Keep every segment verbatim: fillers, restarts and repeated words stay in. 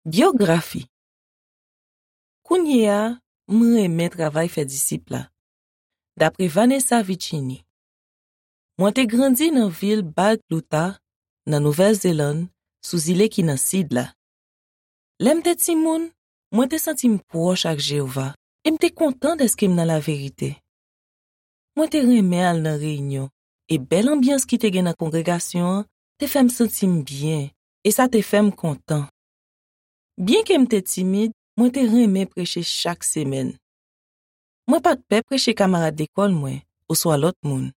Byografi. Kounye a, m renmen travay fè disip la. Dapre Vanessa Vicini. Mwen te grandi nan vil Balclutha, nan Nouvèl Zelann, sou zile ki nan sid la. Lè m te timoun, mwen te santi m pwòch ak Jewova e m te kontan dèske m nan laverite. Mwen te renmen al nan reyinyon, e bèl anbyans ki te gen nan kongregasyon an te fè m santi m byen, e sa te fè m kontan. Byenke m te timid, mwen te renmen preche chak semèn. Mwen pa t pè preche kamarad lekòl mwen oswa lòt moun.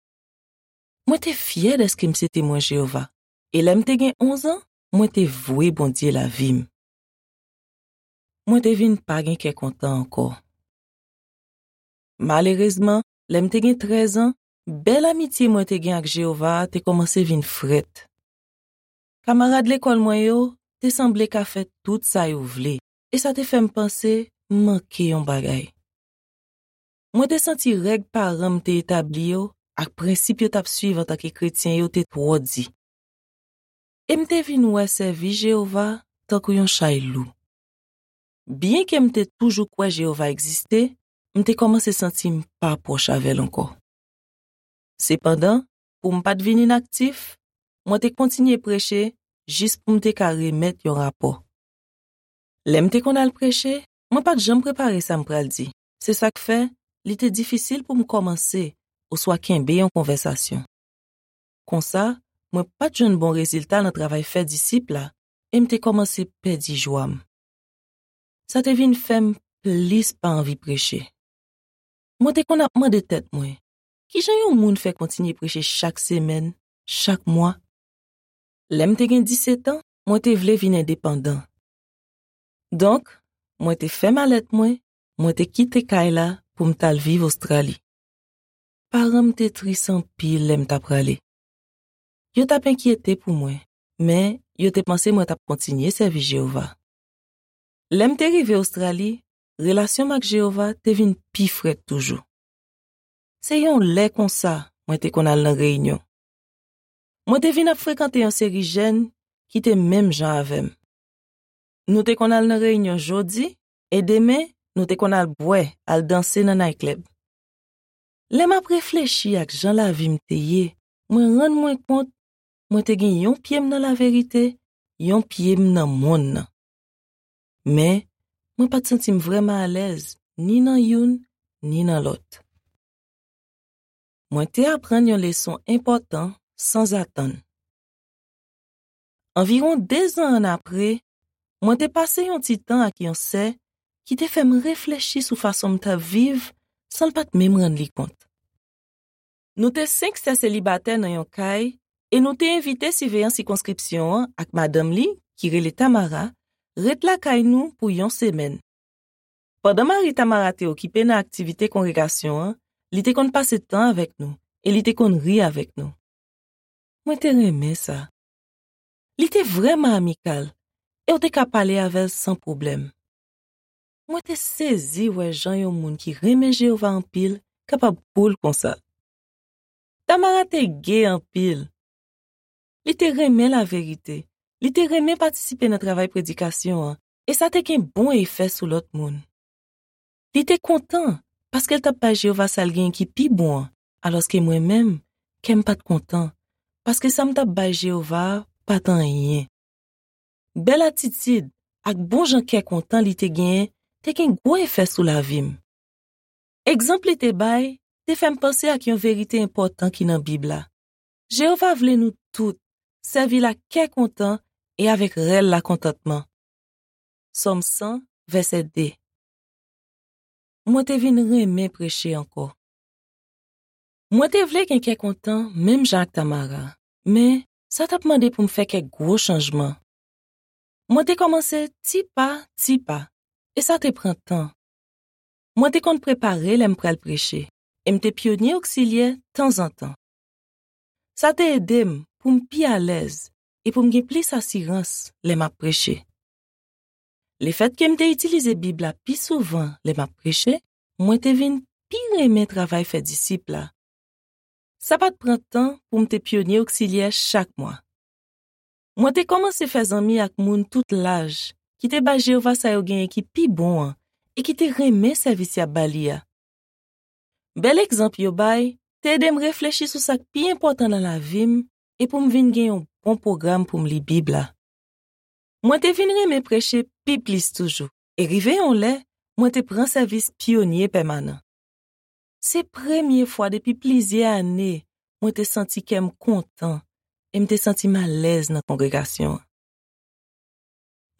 Mwen te fyè dèske m se Temwen Jewova, e lè m te gen onz an, mwen te vwe Bondye lavi m. Mwen te vin pa gen kè kontan ankò. Malerezman, lè m te gen trèz an, bèl amitye mwen te gen ak Jewova a te kòmanse vin frèt. Kamarad lekòl mwen yo te sanble ka fè tout sa yo vle, e sa te fè m panse m manke yon bagay. Mwen te santi règ paran m te etabli yo ak prensip yo t ap suiv antanke kretyen yo te twò di. E m te vin wè sèvi Jewova tankou yon chay lou. Byenke m te toujou kwè Jewova egziste, m te kòmanse santi m pa pwòch avè l ankò. Sepandan, pou m pa t vin inaktif, mwen te kontinye preche jis pou m te ka remèt yon rapò. Lè m te konn al preche, mwen pa t janm prepare sa m pral di. Se sa k fè, li te difisil pou m kòmanse oswa kenbe yon konvèsasyon. Konsa, mwen pa t jwenn bon rezilta nan travay fè disip la, e m te kòmanse pèdi jwa m. Sa te vin fè m plis pa anvi preche. Mwen te konn ap mande tèt mwen, "Ki jan yon moun fè kontinye preche chak semèn, chak mwa?" Lè m te gen disèt an, mwen te vle vin endepandan. Donk, mwen te fè malèt mwen, mwen te kite kay la pou m t al viv Ostrali. Paran m te tris anpil lè m t ap prale. Yo t ap enkyete pou mwen, men yo te panse mwen t ap kontinye sèvi Jewova. Lè m te rive Ostrali, relasyon m ak Jewova te vin pi frèt toujou. Se yon lè konsa mwen te konn al nan reyinyon. Mwen te vin ap frekante yon seri jèn ki te menm jan avè m. Nou te konn al nan reyinyon jodi, e demen, nou te konn al bwè, al danse nan nayklèb. Lè m ap reflechi ak jan lavi m te ye, mwen rann mwen kont mwen te gen yon pye m nan laverite, yon pye m nan monn nan. Men, mwen pa t santi m vrèman alèz ni nan youn ni nan lòt. Mwen te aprann yon leson enpòtan sanzatann. Anviwon dezan annapre, mwen te pase yon ti tan ak yon sè ki te fè m reflechi sou fason m t ap viv san l pa t menm rann li kont. Nou te senk sè selibatè nan yon kay e nou te envite siveyan sikonskripsyon an ak madanm li, ki rele Tamara, ret lakay nou pou yon semèn. Pandan mari Tamara te okipe nan aktivite kongregasyon an, li te konn pase tan avèk nou e li te konn ri avèk nou. Mwen te renmen sa. Li te vrèman amikal e w te ka pale avè l san pwoblèm. Mwen te sezi wè jan yon moun ki renmen Jewova anpil kapab koul konsa. Tamara te ge anpil. Li te renmen laverite. Li te renmen patisipe nan travay predikasyon an, e sa te gen bon efè sou lòt moun. Li te kontan paske l t ap bay Jewova sa l gen ki pi bon an, alòske mwen menm, kè m pa t kontan, paske sa m t ap bay Jewova a pa t anyen. Bèl atitid ak bon jan kè kontan li te genyen te gen gwo efè sou lavi m. Egzanp li te bay te fè m panse ak yon verite enpòtan ki nan Bib la. Jewova vle nou tout sèvi l ak kè kontan e avèk rèl lakontantman. Sòm san, vèsè de. Mwen te vin renmen preche ankò. Mwen te vle gen kè kontan menm jan ak Tamara, men sa t ap mande pou m fè kèk gwo chanjman. Mwen te kòmanse ti pa, ti pa, e sa te pran tan. Mwen te konn prepare lè m pral preche, e m te pyonye oksilyè tanzantan. Sa te ede m pou m pi alèz e pou m gen plis asirans lè m ap preche. Lefètke m te itilize Bib la pi souvan lè m ap preche, mwen te vin pi renmen travay fè disip la. Sa pa t pran tan pou m te pyonye oksilyè chak mwa. Mwen te kòmanse fè zanmi ak moun tout laj ki te bay Jewova sa yo genyen ki pi bon an e ki te renmen sèvis y ap ba li a. Bèl egzanp yo bay te ede m reflechi sou sa k pi enpòtan nan lavi m e pou m vin gen yon bon pwogram pou m li Bib la. Mwen te vin renmen preche pi plis toujou, e rive yon lè, mwen te pran sèvis pyonye pèmanan. Se premye fwa depi plizyè ane mwen te santi kè m kontan e m te santi m alèz nan kongregasyon an.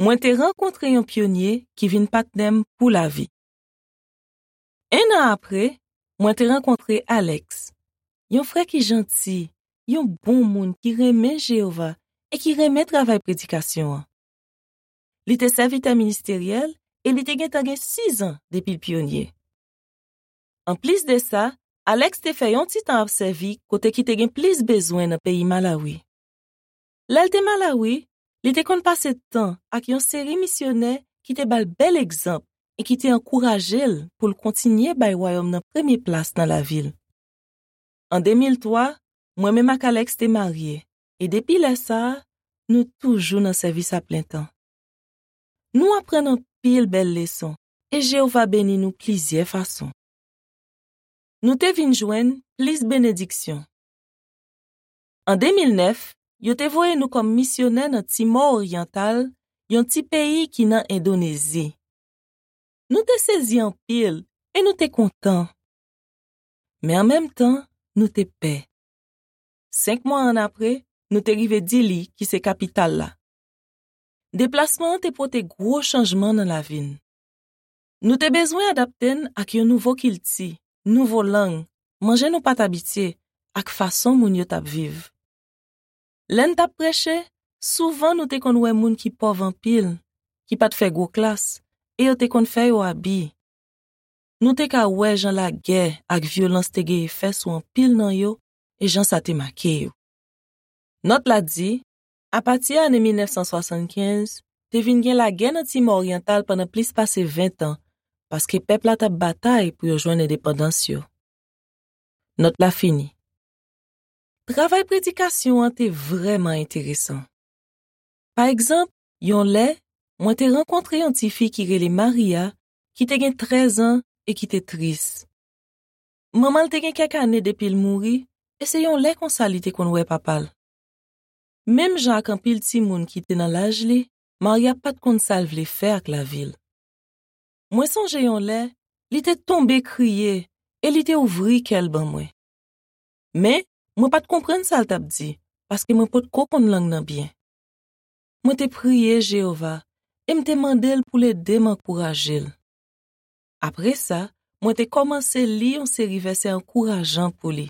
Mwen te rankontre yon pyonye ki vin patnè m pou lavi. En an apre, mwen te rankontre Alex, yon frè ki janti, yon bon moun ki renmen Jewova e ki renmen travay predikasyon an. Li te sèvitè ministeryèl e li te gentan gen sizan depi l pyonye. Anplis de sa, Alex te fè yon ti tan ap sèvi kote ki te gen plis bezwen nan peyi Malawi. Lè l te Malawi, li te konn pase tan ak yon seri misyonè ki te ba l bèl egzanp e ki te ankouraje l pou l kontinye bay Wayòm nan premye plas nan lavi l. An de mil twa, mwen menm ak Alex te marye, e depi lè sa a, nou toujou nan sèvis aplentan. Nou aprann anpil bèl leson, e Jewova beni nou plizyè fason. Nou te vin jwenn plis benediksyon. An de mil nèf, yo te voye nou kòm misyonè nan Timò Oryantal, yon ti peyi ki nan Endonezi. Nou te sezi anpil e nou te kontan. Men an menm tan, nou te pè. Senk mwa annapre, nou te rive Dili, ki se kapital la. Deplasman an te pote gwo chanjman nan lavi n. Nou te bezwen adapte n ak yon nouvo kilti, nouvo lang, manje nou pa t abitye, ak fason moun yo t ap viv. Lè n t ap preche, souvan nou te konn wè moun ki pòv anpil, ki pa t fè gwo klas, e yo te konn fè yo abi. Nou te ka wè jan lagè ak vyolans te gen efè sou anpil nan yo e jan sa te make yo. Nòt la di, apati ane mil nèf san swasannkenz, te vin gen lagè nan Timò Oryantal pandan plis pase ven tan, paske pèp la t ap batay pou yo jwenn endepandans yo. Nòt la fini. Travay predikasyon an te vrèman enteresan. Pa egzanp, yon lè, mwen te rankontre yon tifi ki rele Maria, ki te gen trèz an e ki te tris. Manman l te gen kèk ane depi l mouri, e se yon lè konsa li te konn wè papa l. Menm jan ak anpil timoun ki te nan laj li, Maria pa t konn sa l vle fè ak lavi l. Mwen sonje yon lè, li te tonbe kriye e li te ouvri kè l ban mwen. Men, mwen pa t konprann sa l t ap di, paske mwen potko konn lang nan byen. Mwen te priye Jewova e m te mande l pou l ede m ankouraje l. Apre sa, mwen te kòmanse li yon seri vèsè ankourajan pou li.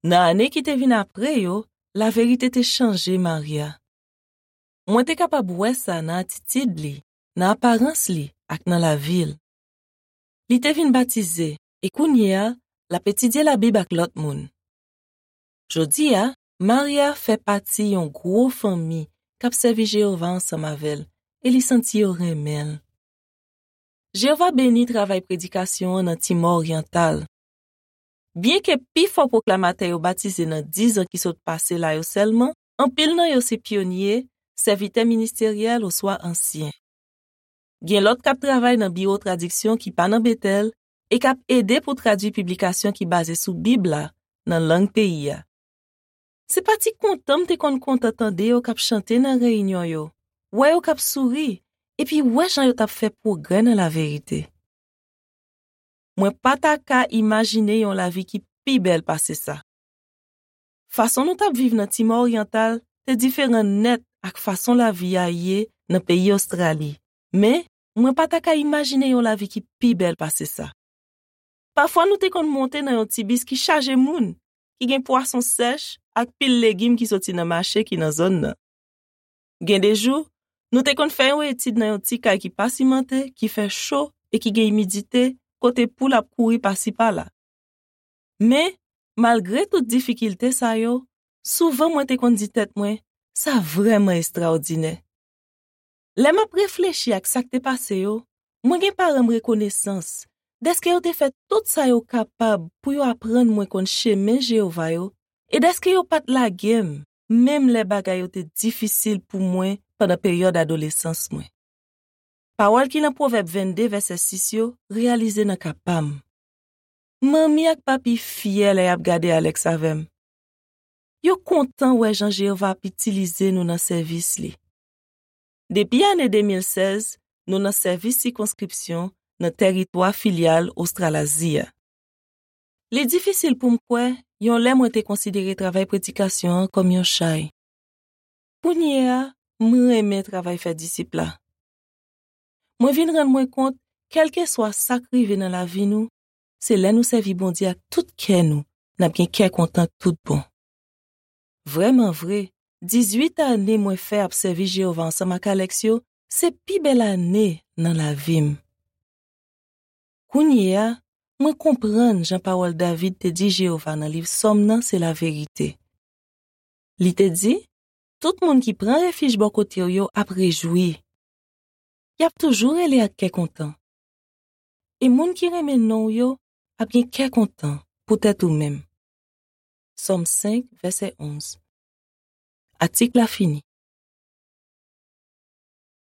Nan ane ki te vin apre yo, laverite te chanje Maria. Mwen te kapab wè sa nan atitid li, nan aparans li ak nan lavi l. Li te vin batize e kounye a, l ap etidye Labib ak lòt moun. Jodi a, Maria fè pati yon gwo fanmi k ap sèvi Jewova ansanm avè l e li santi yo renmen l. Jewova beni travay predikasyon an nan Timò Oryantal. Byenke pifò pwoklamatè yo batize nan diz an ki sot pase la yo sèlman, anpil nan yo se pyonye, sèvitè ministeryèl oswa ansyen. Gen lòt k ap travay nan biwo tradiksyon ki pa nan Betèl e k ap ede pou tradui piblikasyon ki baze sou Bib la nan lang peyi a. Se pa ti kontan m te konn kontan tande yo k ap chante nan reyinyon yo, wè yo k ap souri, epi wè jan yo t ap fè pwogrè nan laverite. Mwen pa ta ka imajine yon lavi ki pi bèl pase sa. Fason nou t ap viv nan Timò Oryantal te diferan nèt ak fason lavi a ye nan peyi Ostrali, men mwen pa ta ka imajine yon lavi ki pi bèl pase sa. Pafwa nou te konn monte nan yon ti bis ki chaje moun, ki gen pwason sèch ak pil legim ki soti nan mache ki nan zòn nan. Gen de jou, nou te konn fè yon etid nan yon ti kay ki pa simante, ki fè cho e ki gen imidite, kote poul ap kouri pasi pala. Men, malgre tout difikilte sa yo, souvan mwen te konn di tèt mwen, sa vrèman estraòdinè. Lè m ap reflechi ak sa k te pase yo, mwen gen paran m rekonesans dèske yo te fè tout sa yo kapab pou yo aprann mwen konn chemen Jewova yo e dèske yo pa t lage m, menm lè bagay yo te difisil pou mwen pandan peryòd adolesans mwen. Pawòl ki nan Pwovèb vennde, vèsè sis yo, reyalize nan ka pa m. Manmi ak papi fyè lè y ap gade Alex avè m. Yo kontan wè jan Jewova ap itilize nou nan sèvis li. Depi ane de mil sèz, nou nan sèvis sikonskripsyon nan tèritwa filyal Ostralazi a. Li difisil pou m kwè yon lè mwen te konsidere travay predikasyon an kòm yon chay. Kounye a, m renmen travay fè disip la. Mwen vin rann mwen kont, kèlkeswa sa k rive nan lavi nou, se lè nou sèvi Bondye ak tout kè nou, n ap gen kè kontan tout bon. Vrèman vre, dizuit ane mwen fè ap sèvi Jewova ansanm ak Alex yo, se pi bèl ane nan lavi m. Kounye a, mwen konprann jan pawòl David te di Jewova nan liv Sòm nan se laverite. Li te di, "Tout moun ki pran refij bò kote w yo ap rejwi. Y ap toujou rele ak kè kontan. E moun ki renmen non w yo ap gen kè kontan poutèt ou menm." Sòm senk, vèsè onz. Atik la fini.